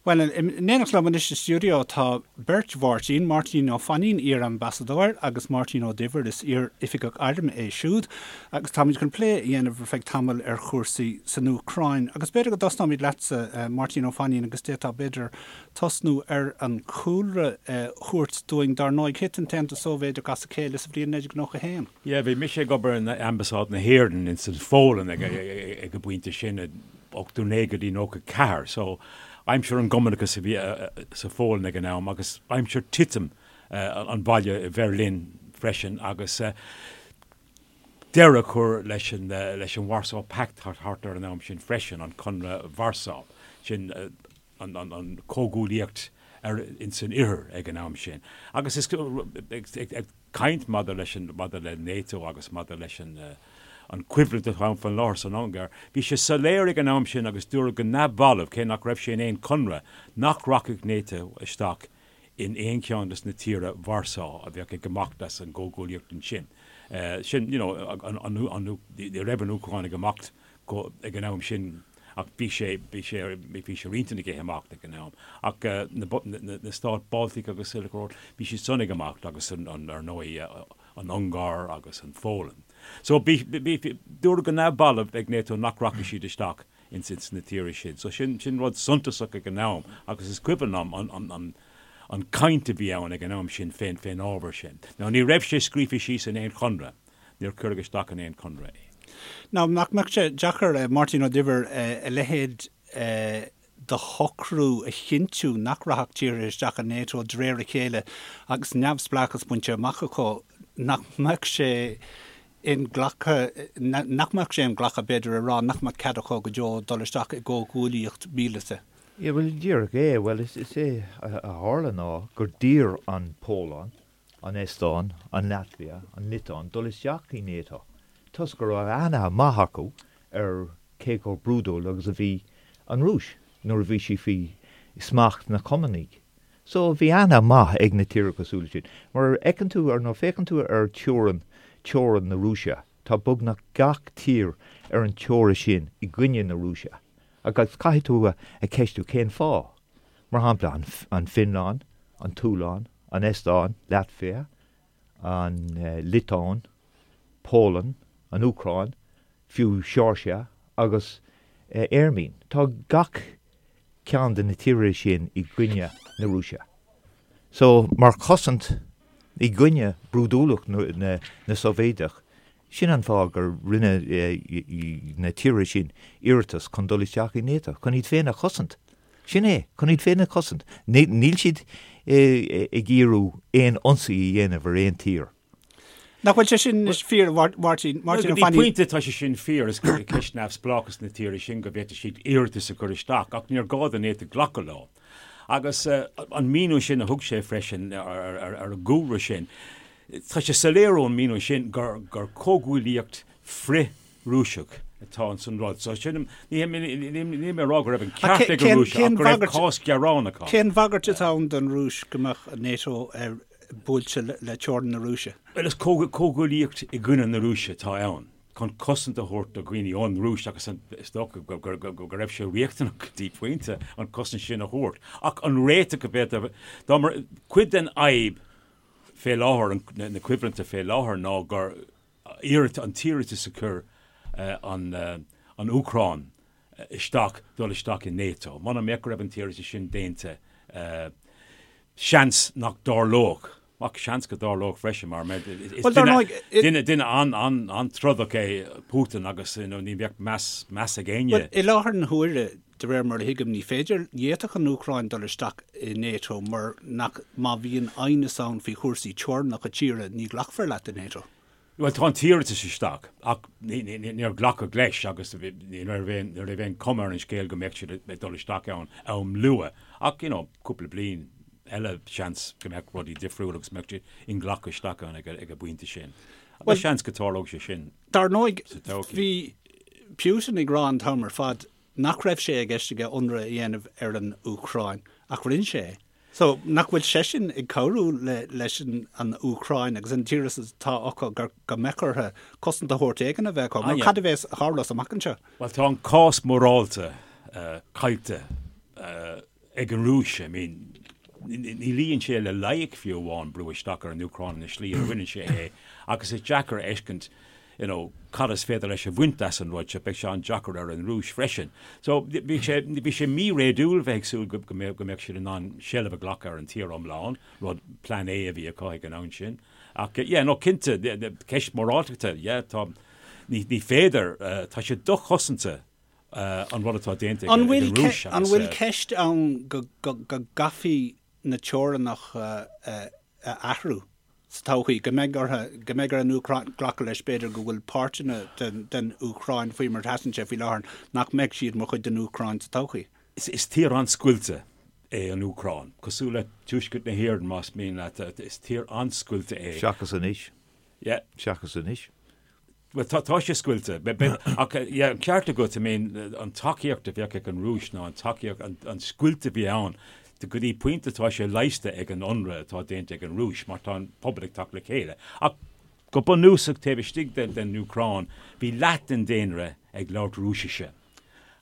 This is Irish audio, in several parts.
Bhuel, in éineacht liom anois sa stiúideo tá beirt Mháirtín, Máirtín Ó Fainín, iar-ambasadóir, agus Máirtín Ó Duibhir, is iar-oifigeach airm é siúd, agus táimid chun plé a dhéanamh ar feadh tamaill ar chúrsaí san Úcráin. Agus b'fhéidir go dtosnóimid leatsa, Máirtín Ó Fainín, agus d'fhéadfá, b'fhéidir, tosnú ar an chúlra a thabhairt dúinn. Dar ndóigh, thit an tAontas Sóivéideach as a chéile sa bhliain 1991. Yeah, bhí mise ag obair in Ambasáid na hÉireann ins an Pholainn ag an bpointe sin. 89 go dtí 94, so aimsir an gCumannachas a bhí sa Pholainn ag an am agus aimsir titim an bhaile i Bheirlín freisin agus deireadh a chur leis an leis an Warsaw Pact thart ar an am sin freisin, an Conradh Warsaw, sin an an comhghuaillíocht ar ins an oirthear ag an am sin. Agus is ag caint maidir leis an, maidir le NATO agus maidir leis an, an choimhlint atá ann faoin láthair san Ungáir, bhí sé soiléir ag an am sin agus dúradh go neamhbhalbh, cé nach raibh sé in aon chonradh, nach rachadh NATO isteach in aon cheann des na tíortha Warsaw a bheadh ag imeacht as an gcomhghuaillíocht ansin. Sin, you know, an, an, an, ní raibh an Úcráin ag imeacht go, ag an am sin ach bhí sé, bhí sé, bhí sé ar intinn aige imeacht ag an am. Ach na, na, na stáit Baltic agus uile go, bhí siad san ag imeacht agus an, an, ar ndóigh, an Ungáir agus an Pholainn. So bhí, bhí, bhí, dúradh go neamhbhalbh ag NATO nach rachadh siad isteach ins, ins na tíortha sin. So sin, sin rud suntasach ag an am agus is cuimhin liom an, an, an, an caint a bhí ann ag an am sin fén, fén ábhar sin. Now ní raibh sé scríofa síos in aon chonradh. Níor cuireadh isteach in aon chonradh é. Now, nach mbeadh sé deacair, Máirtín Ó Duibhir, a leithéid de shocrú a chinntiú nach rachadh tíortha isteach i NATO de réir a chéile agus neamhspleáchas bainte amach acu, nach mbeadh sé inghlactha, nach mbeadh sé inghlactha, b'fhéidir, a rá nach mbeadh cead acu go deo dul isteach i gcomhghuaillíocht mhíleata? Yeah, bhuel, díreach é. Bhuel, is é a tharla ná gur d'iarr an Pholainn an Eastóin, an Laitvia, an Liotuáin dul isteach i NATO toisc go raibh aithne maith acu ar cé chomh brúidiúil agus a bhí an Rúis nuair a bhí sí faoi smacht na Cumannaigh. So bhí aithne maith ag na tíortha cosúil leis sin. Mar fheiceann tú, ar nuair féachann tú ar teorainn, teorainn na Rúise, tá beagnach gach tír ar an teora sin i gcoinne na Rúise. Agus caithfidh tú a cheistiú cén fáth. Mar shampla, an Fhionlainn, an tSualainn, an Eastóin, Laitvia, an Liotuáin, Polainn, an Úcráin, fiú Seoirsia agus Airméin. Tá gach ceann de na tíortha sin i gcoinne na Rúise. So, mar chosaint i gcoinne brúidiúlacht na Sóivéadach, Sin an fáth gur rinne na tíortha sin iarratas chun dul isteach i NATO, chun iad féin a chosaint. Sin é, chun iad féin a chosaint. Níl siad ag iarraidh aon ionsaí a dhéanamh ar aon tír. Nach bhfuil sé sin fíor, a Mháirtín? Go dtí pointe tá sé sin fíor, is ceist neamhspleáchas na tíortha sin go bhféadfadh siad iarratas a chur isteach, ach níor ghá do NATO glacadh leo. Agus an míniú sin a thug sé freisin ar an gcúlra sin, Tá sé soiléir ón míniú sin gur comhghuaillíocht frith-Rúiseach atá ins an rud. So sin, níl mé ag rá go raibh an ceart ag an Rúis ach go raibh cás gearánach ann. Cén bhagairt atá ann don Rúis go mbeadh NATO buailte le teorainn na Rúise? Bhuel, is comhghuaillíocht i gcoinne na Rúise atá ann, chun cosaint a thabhairt do dhaoine ón Rúis agus is dócha go raibh sé riachtanach go dtí pointe an cosaint sin a thabhairt. Ach an réiteach a bheadh, dá mba cuid den fhadhb fé láthair, na coimhlinte fé láthair ná gur iarratas, an t-iarratas a chuir an Úcráin isteach dul isteach i NATO. Muna mbeadh go raibh an t-iarratas sin déanta, seans nach dtarlódh, ach seans go dtarlódh freisin mar is duine, duine an-trodach é Putin agus ní bheadh meas, meas ag éinne. Bhuel, i láthair na huaire, De réir mar a thuigim, ní féidir, ní fhéadfadh an Úcráin dul isteach i NATO mar nach, má bhíonn aighneas ann faoi chúrsaí teorainneacha tíre, ní ghlacfar leat i NATO. Bhuel, tá an t-iarratas isteach ach níor glacadh leis agus ní raibh aon, ní raibh aon chuma ar an scéal go mbeadh siad ag dul isteach ann am luath ach, you know, cúpla bliain eile seans go mbeadh rudaí difriúil agus mbeadh siad inghlactha isteach ann ag an bpointe sin. Agus seans go dtarlódh sé sin Dar ndóigh, sa todhchaí. bhí Putin ag rá an t-am ar fad nach raibh sé i gceist aige ionradh a dhéanamh ar an Úcráin, ach rinne sé é. So, nach bhfuil seisean ag cabhrú le leis an Úcráin agus an díograis atá acu gur go mbeadh orthu cosaint de shórt éigin a bheith acu? Mar cad a bheas a tharlós amach anseo? Bhuel, tá an cás morálta caillte. ag an Rúis, I mean, ní luíonn sé le loighic fiú amháin brú isteach ar an Úcráin ina slí a rinne sé é agus is deacair a fheiscint you know, cad is féidir leis a bhaint as an rud seo, beidh sé an-deacair ar an Rúis freisin. So bhí sé, bhí sé mí-réadúil bheith ag súil go, go mbeadh, go mbeadh siad in ann seilbh a ghlacadh ar an tír iomlán, rud plean A a bhí acu ag an am sin. Ach yeah, no cinnte, ceist móráltachta, yeah, tá, ní, ní féidir, tá sé dochosanta an rud atá déanta ag an Rúis agus. An bhfuil ceist ann go gcaithfí na teorainneacha a athrú sa todhchaí, go mbeidh orthu, go mbeidh ar an Úcráin glacadh leis b'fhéidir go bhfuil páirteanna den Úcráin faoi mar a sheasann sé faoi láthair nach mbeidh siad mar chuid den Úcráin sa todhchaí? Is tír an-scoilte é an Úcráin, cosúil le tuaisceart na hÉireann más mian leat, is tír an-scoilte é. Seachas anois. Yeah. Seachas anois. Bhuel, tá, tá sé scoilte. Ach, yeah, an ceart agat, I mean, an tacaíocht a bheadh ag an Rúis nó an tacaíocht, an, an scoilt a bhí ann, go dtí pointe tá sé leigheasta ag an ionradh atá déanta ag an Rúis mar tá an pobal ag teacht le chéile. Ach go bunúsach taobh istigh den, den Úcráin, bhí leath den daonra ag labhairt Rúisise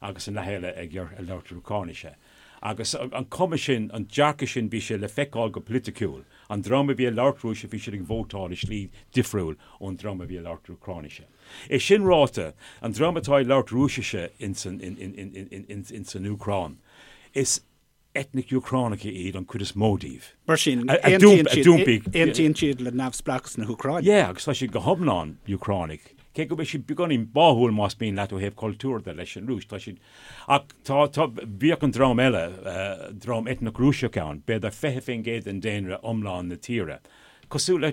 agus an leath eile ag labhairt Úcráinise. Agus an cuma sin, an dearcadh sin, bhí sé le feiceáil go politiciúil. An dream a bhí ag labhairt Rúisise, bhí siad ag vótáil i slí difriúil ón dream a bhí ag labhairt Úcráinise. É sin ráite, an dream atá ag labhairt Rúisise ins an Úcráin, is eitnic Úcránacha iad an chuid is mó díobh. Mar sin, aontaíonn siad le neamhspleáchas na hÚcráine. Yeah, agus tá siad go hiomlán Úcránaigh. Cé go bhfuil siad beagáinín báúil más mian leat ó thaobh cultúir de leis an Rúis, tá siad Ach tá, tá, bhíodh an dream eile, dream eitneach Rúiseach ann, b'fhéidir 20% den daonra iomlán na tíre. Cosúil le,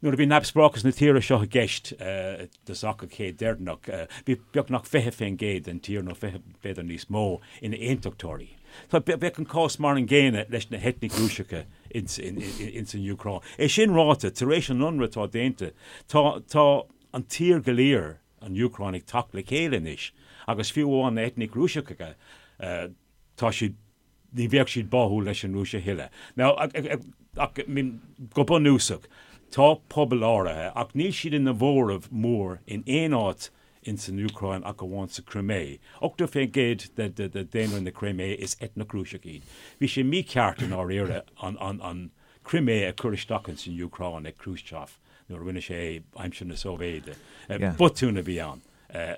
nuair a bhí neamhspleáchas na tíre seo i gceist i dtosach an chéid deireanach, bhí beagnach 20% den tír, nó 20, b'fhéidir níos mó, ina aontachtóirí. Tá, bheadh an cás mar an gcéanna leis na heitnigh Rúiseacha ins, ins an Úcráin. É sin ráite, tar éis an ionradh atá déanta, tá, tá an tír go léir, an Úcráin ag teacht le chéile anois agus fiú amháin na eitnigh Rúiseacha, tá siad, ní bheadh siad báúil leis an Rúis a thuilleadh. Now, ach, I mean, go bunúsach, tá pobal áirithe, ach níl siad ina mhóramh mór in aon áit ins an Úcráin ach amháin sa Chrimé. 80% de daonra na Crimé is eitneach Rúiseach iad. Bhí sé mícheart i ndáiríre an, an, an Crimé a chur isteach ins an Úcráin ag Khrushchev. nuair a rinne sé é aimsir na Sóivéide. Botún a bhí ann.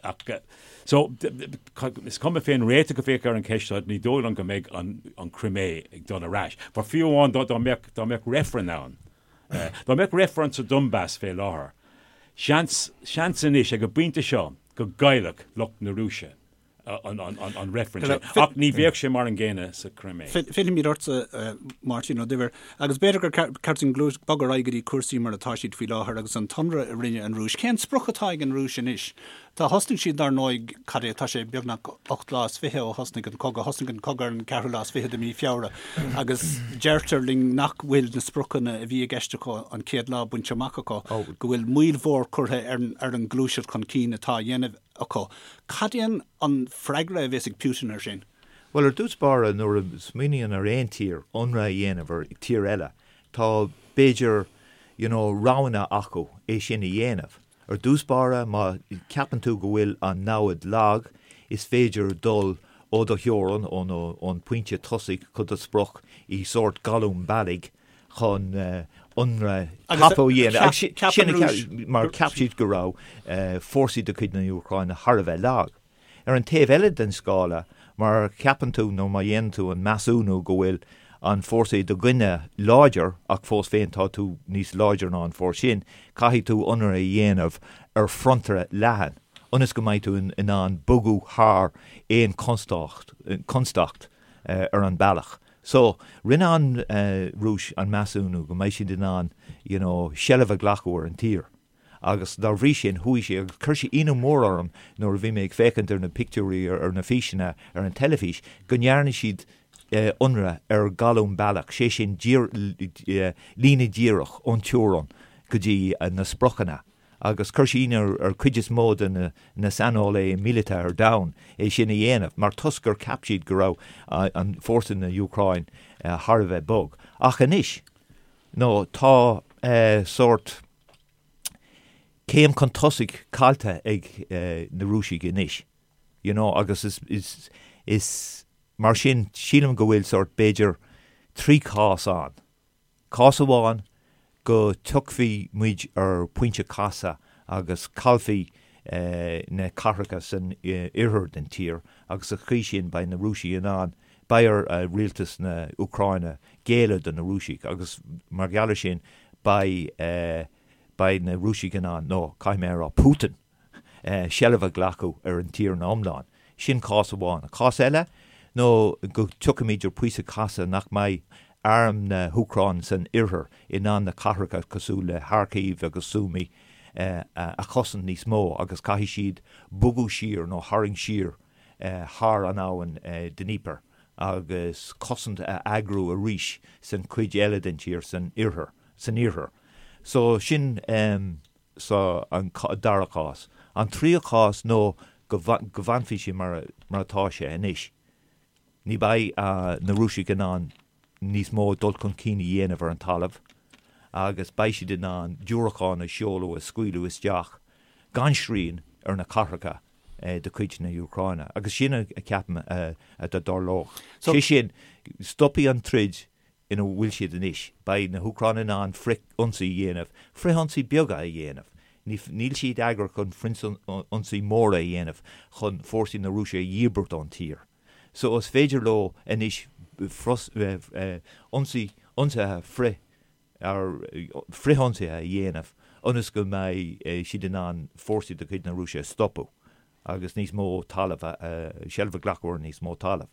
Ach so, is cuma fén réiteach a bheadh ar an cheist seo, ní dóigh liom go mbeidh an Crimé ag dul ar ais. Mar fiú amháin dá mbeadh, dá mbeadh reifreann ann, dá mbeadh reifreann sa Donbas fé láthair, seans, seans anois ag an bpointe seo go gcaillfeadh lucht na Rúise. an reifreann sin. Ach ní bheadh sé mar an gcéanna sa Chrimé. Fillfimid ortsa, Máirtín Ó Duibhir, agus b'fhéidir gur ceart dúinn bogadh ar aghaidh go dtí cúrsaí mar atá siad faoi láthair agus an t-ionradh a rinne an Rúis. Cén sprioc atá ag an Rúis anois? Tá thosnaigh siad dar ndóigh, cad é, tá sé beagnach 28 lá ó thosnaigh an cogadh, thosnaigh an cogadh ar an ceathrú lá is fiche de mhí Feabhra agus deirtear linn nach bhfuil na spriocanna a bhí i gceist acu an chéad lá bainte amach acu, go bhfuil moill mhór curtha ar an ngluaiseacht chun cinn atá á dhéanamh acu. Cad é an freagra a bheas ag Putin air sin? Bhuel, ar dtús báire, nuair a smaoiníonn ar aon tír ionradh a dhéanamh ar tír eile, tá, b'fhéidir, you know, roghanna acu é sin a dhéanamh. Ar dtús báire, má ceapann tú go bhfuil an namhaid lag, is féidir dul ó do theorainn, ón pointe tosaigh go do sprioc i sórt galún bealaigh chun ionradh tapa a dhéanamh. Sin a cheap, mar cheap siad go raibh fórsaí de chuid na hÚcráine thar a bheith lag. Ar an taobh eile den scála, má cheapann tú nó má dhéanann tú an measúnú go bhfuil an fórsa i do gcoinne láidir ach fós féin tá tú níos láidre ná an fórsa sin, caithfidh tú ionradh a dhéanamh ar fronta leathan ionas go mbeidh tú in ann bogadh thar aon chonstaic ar an bealach. So, rinne an Rúis an measúnú go mbeidh siad in ann, you know, seilbh a ghlacadh ar an tír. Agus dá bhrí sin, chuaigh sé, agus chuir sé ionadh mór orm nuair a bhí mé ag féachaint ar na pictiúirí, ar na físeanna ar an teilifís, go ndearna siad ionradh ar ghalún bealach, sé sin, líne dhíreach ón teorainn go dtí na spriocanna. agus chuir sé ionadh ar chuid is mó de na saineolaithe míleata ar domhan é sin a dhéanamh, mar toisc gur cheap siad go raibh an fórsa na Úcráin thar a bheith bog. Ach anois, nó tá sórt céim chun tosaigh caillte ag na Rúisigh anois, you know, agus is, is, is. Mar sin, sílim go bhfuil sórt, b'fhéidir, 3 chás ann. Cás amháin, go dtiocfaidh muid ar phointe casadh agus caillfidh na cathracha san oirthear den tír agus sa chaoi sin beidh na Rúisigh in ann, beidh ar rialtas na Úcráine géilleadh do na Rúisigh agus mar gheall ar sin beidh, beidh na Rúisigh in ann, nó caithfidh mé a rá Putin, seilbh a ghlacadh ar an tír ina iomlán. Sin cás amháin. An cás eile nó go dtiocfaimid ar phointe casadh nach mbeidh arm na hÚcráine san oirthear in ann na cathracha cosúil le Kharkiv agus Sumy a chosaint níos mó agus caithfidh siad bogadh siar nó tharraingt siar thar an abhainn Dnieper agus cosaint a eagrú arís san chuid eile den tír san oirthear. San iarthar. So sin. So an dara cás. An tríú cás nó go bhfanfaidh sé mar atá sé anois. Ní bheidh na Rúisigh in ann níos mó dul chun cinn a dhéanamh ar an talamh agus beidh siad in ann diúracáin a sheoladh, a scaoileadh isteach gan srian ar na cathracha de chuid na hÚcráine. Agus sin a ceapaim a dtarlódh. Sé sin, stopfaidh an troid ina bhfuil siad anois. Beidh na hÚcránaigh in ann frith-ionsaí a dhéanamh, frith-ionsaí beaga a dhéanamh. Níl siad eagraithe chun frith-ionsaí móra a dhéanamh chun fórsaí na Rúise a dhíbirt ón tír. So is féidir leo anois ionsaí, ionsaithe frith, frith-ionsaithe a dhéanamh ionas go mbeidh siad in ann fórsaí de chuid na Rúise a stopadh agus níos mó talamh, seilbh a ghlacadh ar níos mó talaimh.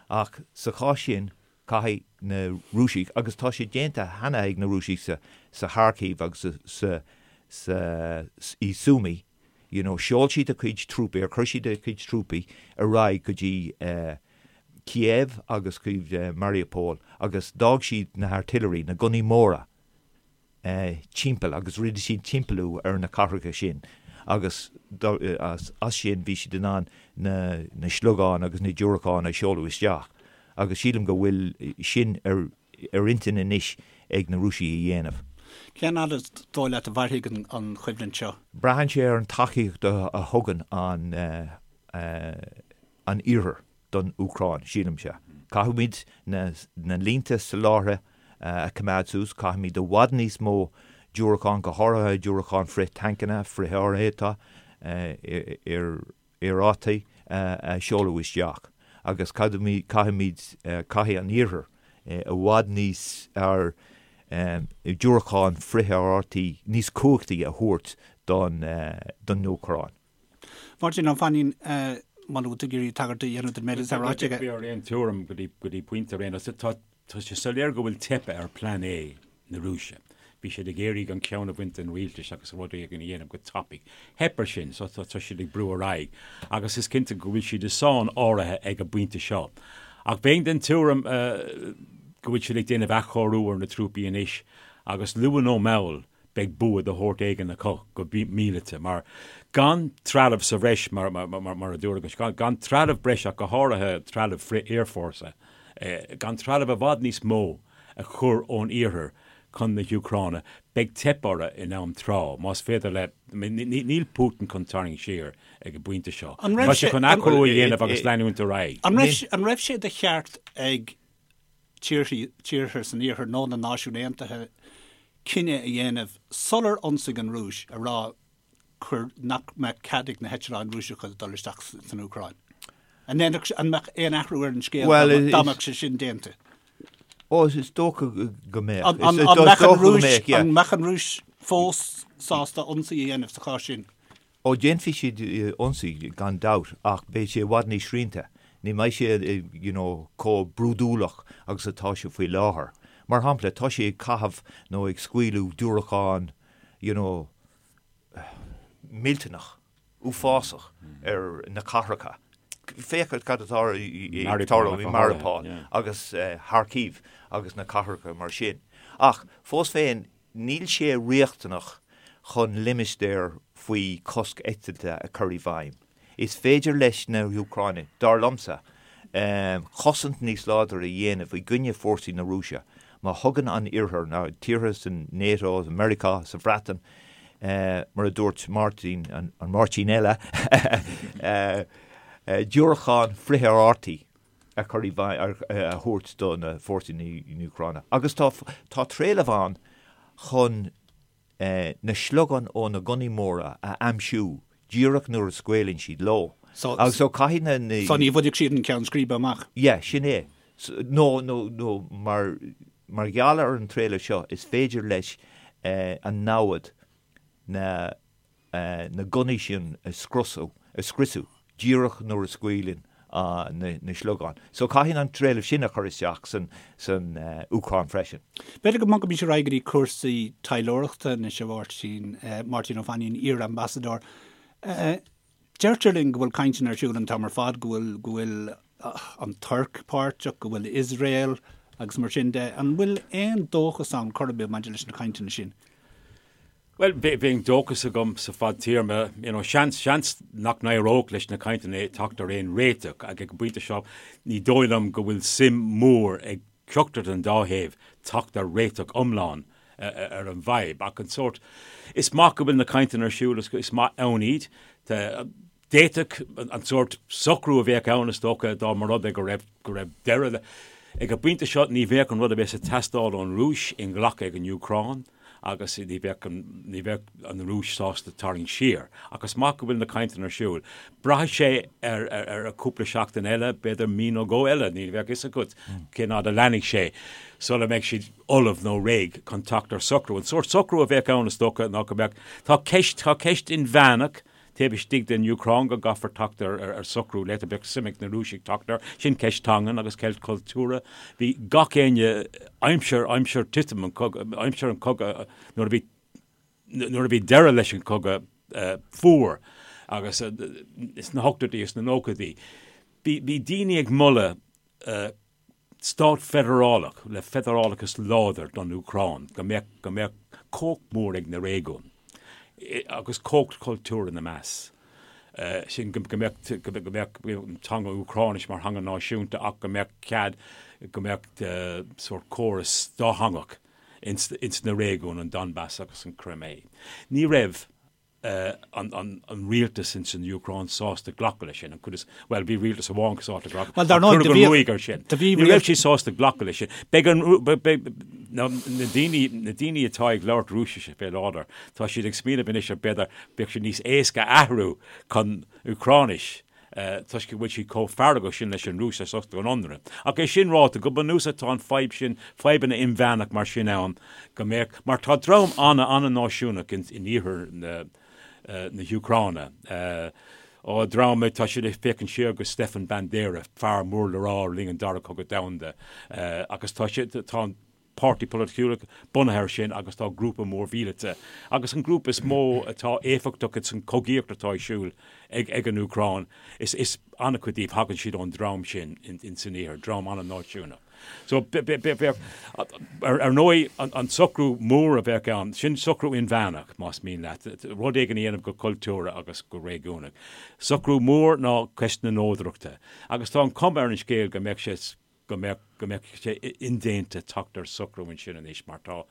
Ach sa chás sin, Caithfidh na Rúisigh, agus tá sé déanta cheana ag na Rúisigh sa Kharkiv agus sa sa i Sumy, you know, sheol siad a gcuid trúpaí, ar chuir siad a gcuid trúpaí ar aghaidh go dtí Kiev agus chuig Mariupol agus d'fhág siad na artillery, na gunnaí móra, timpeall agus rinne siad timpeallú ar na cathracha sin agus as sin bhí siad in ann na sliogáin agus na diúracáin a sheoladh isteach agus sílim go bhfuil sin ar intinn anois ag na Rúisigh a dhéanamh. Cén fhad is dóigh leat a mhairfidh an choimhlint seo? Braitheann sé ar an tacaíocht a thugann an an Iarthar don Úcráin, sílimse. Caithfimid na línte soláthair a choimeád suas, caithfimid i bhfad níos mó diúracán, go háirithe diúracáin frith-tancanna, frith-aerárthaí, aerárthaí a sheoladh isteach agus caithfimid, caithfidh an Iarthar i bhfad níos fearr diúracáin frith-aerárthaí níos cumhachtaí a thabhairt don Úcráin. Máirtín Ó Mainnín, muna bhfuil tú ag iarraidh tagairt a dhéanamh don méid atá ráite aige. Bhí ar aon tuairim go dtí go dtí pointe ar aon nós. Tá tá sé soiléir go bhfuil teipthe ar Plean A na Rúise. Bhí siad ag iarraidh an ceann a bhaint den rialtas agus rud éigin a dhéanamh go tapaidh. Theip ar sin so tá tá siad ag brú ar aghaidh agus is cinnte go bhfuil siad i sáinn áirithe ag an bpointe seo. Ach bheinn den tuairim go bhfuil siad ag déanamh athchóiriú ar na trúpaí anois agus luath nó mall beidh bua de shórt éigin acu go míleata, mar gan trealamh sa bhreis, mar a dúradh, gan trealamh breise ach go háirithe trealamh frith-aerfhórsa, gan trealamh i bhfad níos mó a chur ón iarthar chun na hÚcráine, beidh teip orthu in am tráth, más féidir le, níl Putin chun tarraingt siar ag an bpointe seo. Tá sé chun athchóiriú a dhéanamh agus leanúint ar aghaidh. An raibh sé de cheart ag tíortha san Iarthar nó na Náisiúin Aontaithe cinneadh a dhéanamh sular ionsaigh an Rúis a rá cuir nach mbeadh cead ag na heitleáin Rúiseacha dul isteach san Úcráin. An ndéanfadh, an mbeadh aon athrú ar an scéal dá mbeadh sé sin déanta? Ó, is dócha go mbeadh. An mbeadh an Rúis, an mbeadh an Rúis fós sásta ionsaí a dhéanamh sa chás sin? Ó, déanfaidh siad ionsaí gan dabht ach beidh sé i bhfad níos srianta. Ní mbeidh sé you know chomh brúidiúlach agus atá sé faoi láthair. Mar shampla, tá sé ag caitheamh nó ag scaoileadh diúracán you know millteanach, uafásach ar na cathracha. Féach cad atá ag tarlú i Mariupol agus Kharkiv agus na cathracha mar sin. Ach fós féin, Níl sé riachtanach chun limistéar faoi chosc eitilte a chur i bhfeidhm. Is féidir leis na hÚcránaigh, dar liomsa, cosaint níos láidre a dhéanamh i gcoinne fórsaí na Rúise má thugann an Iarthar, na tíortha san NATO, Meiriceá, sa Bhreatain, mar a dúirt Máirtín, an Máirtín eile, diúracáin frith-aerárthaí. a chur i bhfeidhm, a thabhairt do na fórsaí na Úcráine. Agus tá tá trealamh ann chun na sliogáin ó na gunnaí móra a aimsiú díreach nuair a scaoileann siad leo. Agus so caithfidh na. So ní bhainfidh siad an ceann scríbe amach? Yeah, sin é. Nó, nó, nó mar, mar gheall ar an trealamh seo is féidir leis an namhad na na gunnaí sin a scriosadh, a scriosadh díreach nuair a scaoileann na sliogáin. So caithfidh an trealamh sin a chur isteach san, san Úcráin freisin. B'fhéidir go mbogfaimis ar aghaidh go dtí cúrsaí taidhleoireachta anois, a Mháirtín, Máirtín Ó Fainín, iar-Ambasadóir. Deirtear linn go bhfuil cainteanna ar siúl an t-am ar fad, go bhfuil, go bhfuil an Tuirc páirteach, go bhfuil Iosrael agus mar sin de. An bhfuil aon dóchas ann chor ar bith maidir leis na cainteanna sin? Bhuel, bheadh dóchas agam sa fadtéarma, you know, seans, seans nach n-éireodh leis na cainteanna teacht ar aon réiteach ach ag an bpointe seo ní dóigh liom go bhfuil suim mhór ag ceachtar den dá thaobh teacht ar réiteach iomlán ar an bhfadhb. Ach an sórt, is maith go bhfuil na cainteanna ar siúl, is maith ann iad. D'fhéadfadh an sórt socrú a bheadh ann, is dócha, dá mba rud é go raibh, go raibh deireadh le. Ag an bpointe seo, ní bheadh an rud a bheas ag teastáil ón Rúis inghlactha ag an Úcráin agus ní bheadh an, ní bheadh an Rúis sásta tarraingt siar. Ach is maith go bhfuil na cainteanna ar siúl. Braithfidh sé ar, ar, ar cúpla seachtain eile, b'fhéidir mí nó dhó eile, ní bheadh fhios agat cén fhad a leanfaidh sé sula mbeidh siad ullamh nó réidh chun teacht ar socrú. An sórt socrú a bheadh ann, is dócha, ná go mbeadh, tá ceist, tá ceist inmheánach Taobh istigh den Úcráin go gcaithfear teacht ar socrú léi, bheadh suim ag na Rúisigh teacht air. Sin ceist teangan agus ceist cultúrtha. Bhí gach éinne, aimsir, aimsir titim an chogaidh, aimsir an chogaidh, nuair a bhí, nuair a bhí deireadh leis an chogadh fuar agus sna hochtóidí is sna nóchaidí, bhí, bhí daoine ag moladh stát feidearálach le feidearálachas láidir don Úcráin, go mbeadh, go mbeadh cumhacht mhór ag na réigiúin agus cumhacht chultúrtha ina measc. Sin go mbeadh, go mbeadh an teanga Úcráinis mar theanga náisiúnta ach go mbeadh cead, go mbeadh sórt córas dátheangach ins, ins na réigiúin, an Donbas agus an Crimea. Ní raibh. an rialtas ins an Úcráin sásta glacadh leis sin, an chuid is, bhuel, bhí rialtas amháin sásta glacadh, Bhuel, dar ndóigh, do bhí, ruaig air sin. Do bhí Ní raibh siad sásta glacadh leis sin. Beidh an, beidh, na daoine, na daoine atá ag labhairt Rúisise fé láthair, tá siad ag smaoineamh anois ar b'fhéidir, bheadh sé níos éasca athrú chun Úcráinis. toisc go bhfuil siad chomh feargach sin leis an Rúis as ucht an ionradh. Ach é sin ráite, go bunúsach tá an fadhb sin, fadhbanna inmheánach mar sin ann, go mbeadh, mar tá dream an-an-náisiúnach in iarthar na na hÚcráine, ó dream, tá siad ag féachaint siar go Stefan Bandera, fear mór le rá le linn an Dara Cogadh Domhanda, agus tá siad, tá an páirtí polaitiúil bunaithe air sin agus tá grúpa mór mhíleata agus an grúpa is mó atá éifeachtach ins an chogaíocht atá ar siúl ag ag an Úcráin is is an-chuid díobh thagann siad ón dream sin in san iarthar, dream an-náisiúnach. So bheadh ar ar ndóigh an an socrú mór a bheadh ann, sin socrú inmheánach más mian leat, rud éigin a dhéanamh go cultúrtha agus go réigiúnach. Socrú mór ná ceist na neodrachta agus tá an chuma ar an scéal go mbeadh sé go mbeadh, go mbeadh sé indéanta teacht ar socrú ansin anois mar tá,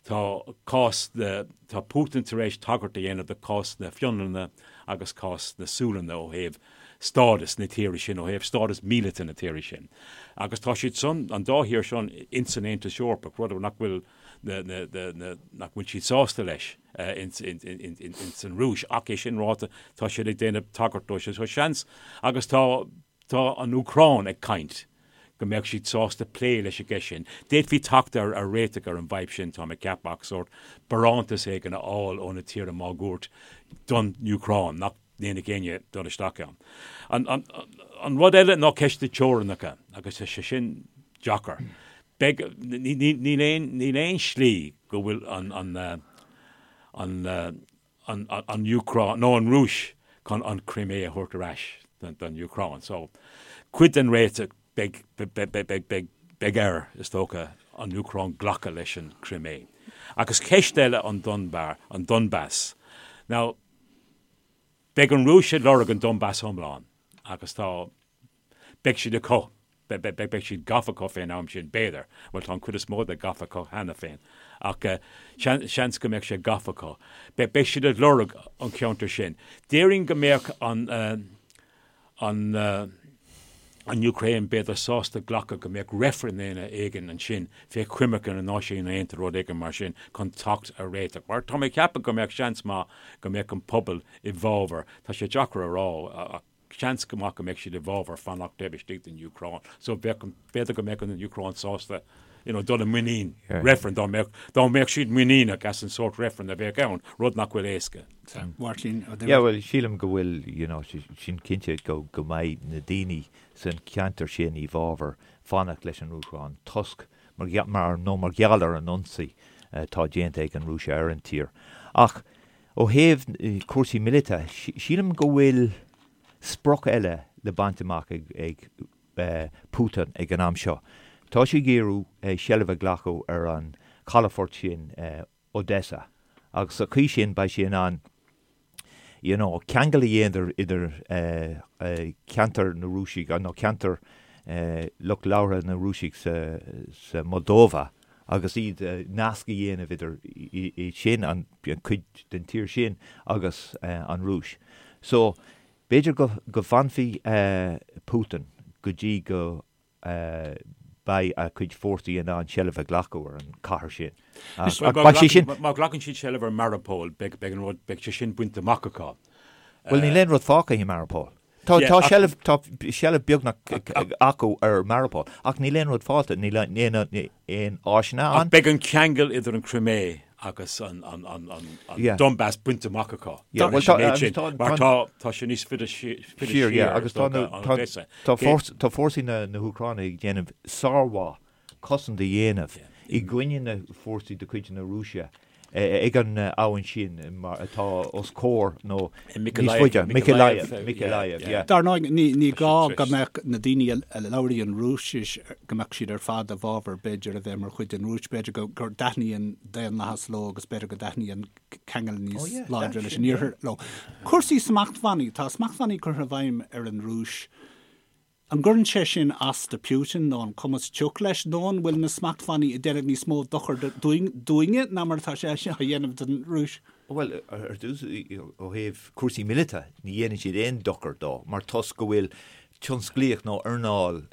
tá cás na, tá Putin tar éis tagairt a dhéanamh do chás na Fionlainne agus cás na Sualainne ó thaobh stádas na tíre sin, ó thaobh stádas míleata na tíre sin. Agus tá siad san, an dá thír sin, ins an Aontas Eorpach, rud nach bhfuil na, na, na, na, nach bhfuil siad sásta leis ins, ins, ins, ins an Rúis. Ach é sin ráite, tá siad ag déanamh tagairt dó sin. So seans, agus tá, Tá an Úcráin ag caint go mbeadh siad sásta plé leis an gceist sin. D'fhéadfaí teacht ar réiteach ar an bhfadhb sin, táim ag ceapadh, ach sórt barántas éigin a fháil ó na tíortha máguaird don Úcráin, nach ndéanfadh éinne dul isteach ann. An rud eile ná ceist na teorainneacha, agus tá sé sin deacair. Beidh, níl aon, níl aon slí go bhfuil an, an, an, an Úcráin, nó an Rúis chun an Crimea a thabhairt ar ais don Úcráin. So, cuid den réiteach, beidh, beidh, beidh air, is dócha, an Úcráin glacadh leis an Crimea. Agus ceist eile an Donbar, an Donbas. Now, beidh an Rúis ag lorg an Donbas iomlán agus tá, Beidh siad acu. Beidh siad gafa acu fén am sin, b'fhéidir. Bhuel, tá an chuid is mó de gafa acu cheana féin. Ach seans go mbeadh sé gafa acu. Beidh siad ag lorg an cheantair sin. Déarfainn go mbeadh an, an, an Úcráin b'fhéidir sásta glacadh go mbeadh reifreann éigin ansin fé choimirce na Náisiún Aontaithe, rud éigin mar sin, chun teacht ar réiteach. Mar tá mé ag ceapadh go mbeadh seans maith go mbeadh an pobal i bhfabhar, tá sé deacair a rá ach seans go maith go mbeadh siad i bhfabhar fanacht taobh istigh den Úcráin. So bheadh, b'fhéidir go mbeadh an Úcráin sásta you know, dul i muinín reifreann dá mbeadh, dá mbeadh siad muiníneach as an sórt reifreann a bheadh ann, rud nach bhfuil éasca. Máirtín Ó Duibhir. Yeah, bhuel, sílim go bhfuil, you know, sin cinnte go, go mbeidh na daoine san cheantar sin i bhfabhar fanacht leis an Úcráin toisc mar, mar, nó mar gheall ar an ionsaí atá déanta ag an Rúis ar an tír. Ach ó thaobh cúrsaí míleata, sílim go bhfuil sprioc eile le baint amach ag, ag Putin ag an am seo. Tá sé ag iarraidh seilbh a ghlacadh ar an calafort sin, Odessa, agus sa chaoi sin beidh sé in ann you know ceangal a dhéanamh idir ceantar na Rúisigh nó ceantar lucht labhartha na Rúisigh sa Moldova agus iad nasc a dhéanamh idir iad sin, an cuid den tír sin agus an Rúis. So B'fhéidir go bhfanfaidh Putin go dtí go mbeidh a chuid fórsaí in ann seilbh a ghlacadh ar an chathair sin. Má ghlacann siad seilbh ar Mariupol, beidh an rud, beidh sé sin bainte amach acu. Bhuel, níl aon rud fágtha i Mariupol. Tá seilbh, tá seilbh beagnach acu ar Mariupol, ach níl aon rud fágtha, níl aon áiseanna ann. Ach beidh an ceangal idir an Crimea agus an Donbas bainte amach acu. Mar tá sé níos faide siar agus tá fórsaí na hÚcráine ag déanamh sármhaith cosaint a dhéanamh i gcoinne na fórsaí de chuid na Rúise ag an abhainn sin mar atá os comhair nó níos faide, Mykolaiv, Mykolaiv, yeah. Dar ndóigh, ní gá go mbeadh na daoine a labhraíonn Rúisis, go mbeadh siad ar fad i bhfabhar, b'fhéidir, a bheith mar chuid den Rúis. B'fhéidir go dtaitníonn daonlathas leo agus b'fhéidir go dtaitníonn ceangal níos láidre leis an iarthar leo. Cúrsaí smachtbhannaí, tá smachtbhannaí curtha i bhfeidhm ar an Rúis. An gcuireann sé sin as do Putin nó an cumas tioc leis nó an bhfuil na smachtbhannaí ag déanamh níos mó dochair dúinne ná mar atá sé á dhéanamh don Rúis? Bhuel, ar dtús, ó thaobh cúrsaí míleata, ní dhéanann siad aon dochar dó mar toisc go bhfuil tionsclaíocht nó earnáil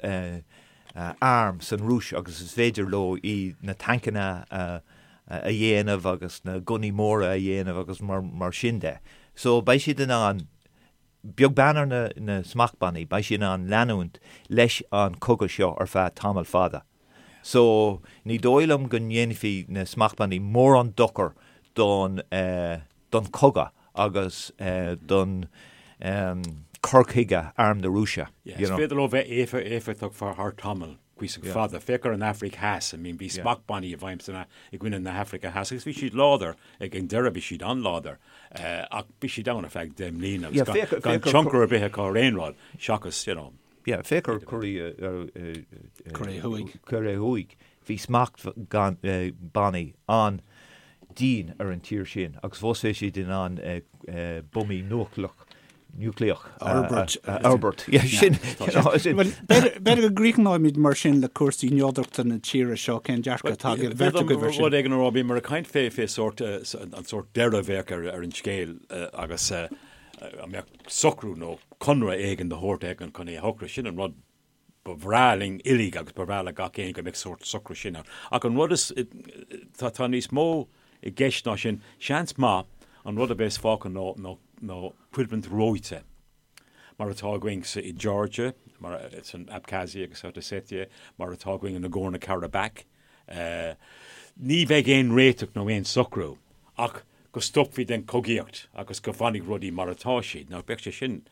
arm san Rúis agus is féidir leo iad na tancanna a dhéanamh agus na gunnaí móra a dhéanamh agus mar sin de. So beidh siad in ann Beag beann ar na smachtbhannaí, beidh siad in ann leanúint leis an chogadh seo ar feadh tamall fada. So, ní dóigh liom go ndéanfaidh na smachtbhannaí mórán dochar don don chogadh agus don cur chuige arm na Rúise. Is féidir leo bheith éifeachtach thar tamall. cuíosach fada. Féach ar an Afraic Theas, I mean bhí smachtbhannaí i bhfeidhm san i gcoinne na hAfraice Theas agus bhí siad láidir, ag an deireadh bhí siad an-láidir ach bhí siad ann ar feadh 10 mbliana agus gan tionchar ar bith acu ar aon rud seachas, you know. Yeah, féach ar Cóiré Thuaidh. Cóiré Thuaidh. Bhí smachtbhannaí an-dian ar an tír sin agus fós bhí siad in ann buamaí núicléach núicléach a fhorbairt. A fhorbairt. Yeah, sin, you know, sin. Bhuel, b'fhéidir go gcríochnóimid mar sin le cúrsaí neodrachta na tíre seo, cén dearcadh atá ag an bheirt agaibh air sin? Rud éigin a rá, bhíomar ag caint fé fé sórt, an sórt deireadh a bheadh ar an scéal agus an mbeadh socrú nó conradh éigin de shórt éigin chun é a shocrú. Sin an rud ba bhreá linn uilig agus ba bhreá le gach éinne go mbeadh sórt socrú sin ann. Ach an rud is, tá, tá níos mó i gceist ná sin. Seans maith an rud a bheas fágtha ná, ná, ná coimhlint reoite, mar atá againn sa, i Georgia, mar, san Abkhazia agus South Ossetia, mar atá againn i Nagorno-Karabakh. Ní bheidh aon réiteach nó aon socrú ach go stopfaí den chogaíocht agus go bhfanfaidh rudaí mar atá siad. Now bheadh sé sin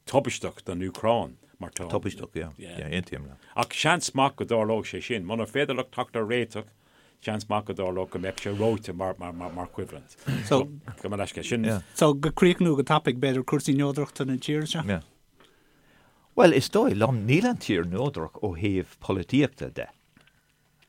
tubaisteach don Úcráin mar tá. Tubaisteach, yeah. Yeah, aontaím leat. Ach seans maith go dtarlódh sé sin. Munar féidir leo teacht ar réiteach, seans maith go dtarlódh go mbeadh sé reoite mar, mar, mar, mar choimhlint. So, Gabh mo leithscéal. Sin. Yeah. So, go críochnú go tapaidh, b'fhéidir, cúrsaí neodrachta na tíre seo? Yeah. Bhuel, is dóigh liom, níl an tír neodrach ó thaobh polaitíochta de.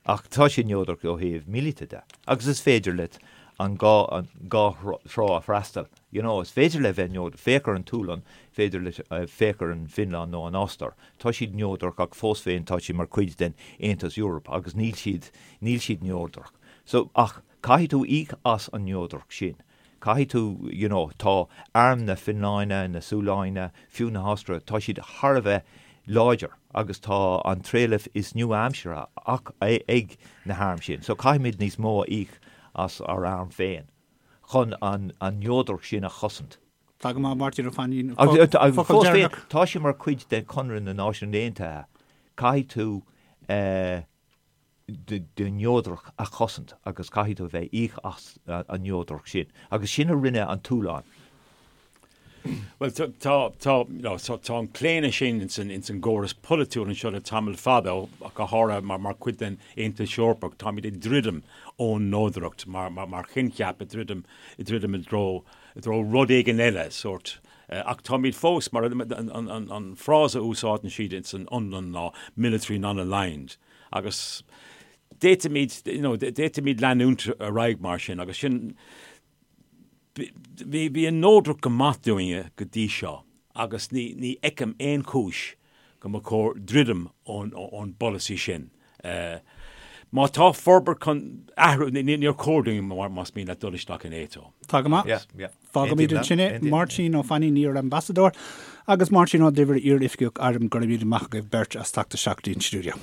Ach tá sé neodrach ó thaobh míleata de. Agus is féidir leat an dhá, an dhá thrá a freastal. You know, is féidir le bheith neodrach, féach ar an tSualainn, féidir leat, féach ar an bhFionlainn nó an Ostair. Tá siad neodrach ach fós féin tá siad mar chuid den Aontas Eorpach agus níl siad, níl siad neodrach. So, ach caithfidh tú íoc as an neodracht sin. Caithfidh tú, you know, tá arm na Fionlainne, na Sualainne, fiú na hOstaire, tá siad thar a bheith. láidir agus tá an trealamh is nua-aimseartha ag na hairm sin. So caithfimid níos mó a íoc as ár arm féin chun an neodracht sin a chosaint. Tá go maith, Máirtín Ó Fainín. Agus fós féin, tá sé mar chuid de Chonradh na Náisiún Aontaithe. Caithfidh tú do neodracht a chosaint agus caithfidh tú a bheith íoc as an neodracht sin. Agus sin a rinne an tSualainn. Bhuel, tá, tá, you know, tá an claonadh sin ins an, ins an gcóras polaitiúil anseo le tamall fada, ach go háirithe mar, mar chuid den Aontas Eorpach, táimid ag druidim ón neodracht mar, mar, mar choincheap, ag druidim, ag druidim i dtreo, i dtreo rud éigin eile, sórt. Ach táimid fós, mar an, an, an, an frása a úsáideann siad ins an Fhionlainn ná military non-aligned. Agus d'fhéadfaimid, you know, d'fhéadfaimid leanúint ar aghaidh mar sin, agus sin, Bhí an neodracht go maith dúinne go dtí seo agus ní fheicim aon chúis go mba chóir druidim ón bpolasaí sin. Má tá forbairt chun athrú, níor chóir dúinn más mian leat dul isteach in NATO. Tá go maith. Fágfaimid ansin é. Máirtín Ó Fainín, iar-Ambasadóir, agus Máirtín Ó Duibhir, iar-Oifigeach Airm, go raibh míle maith agaibh beirt as teacht isteach dtí'n stiúideo.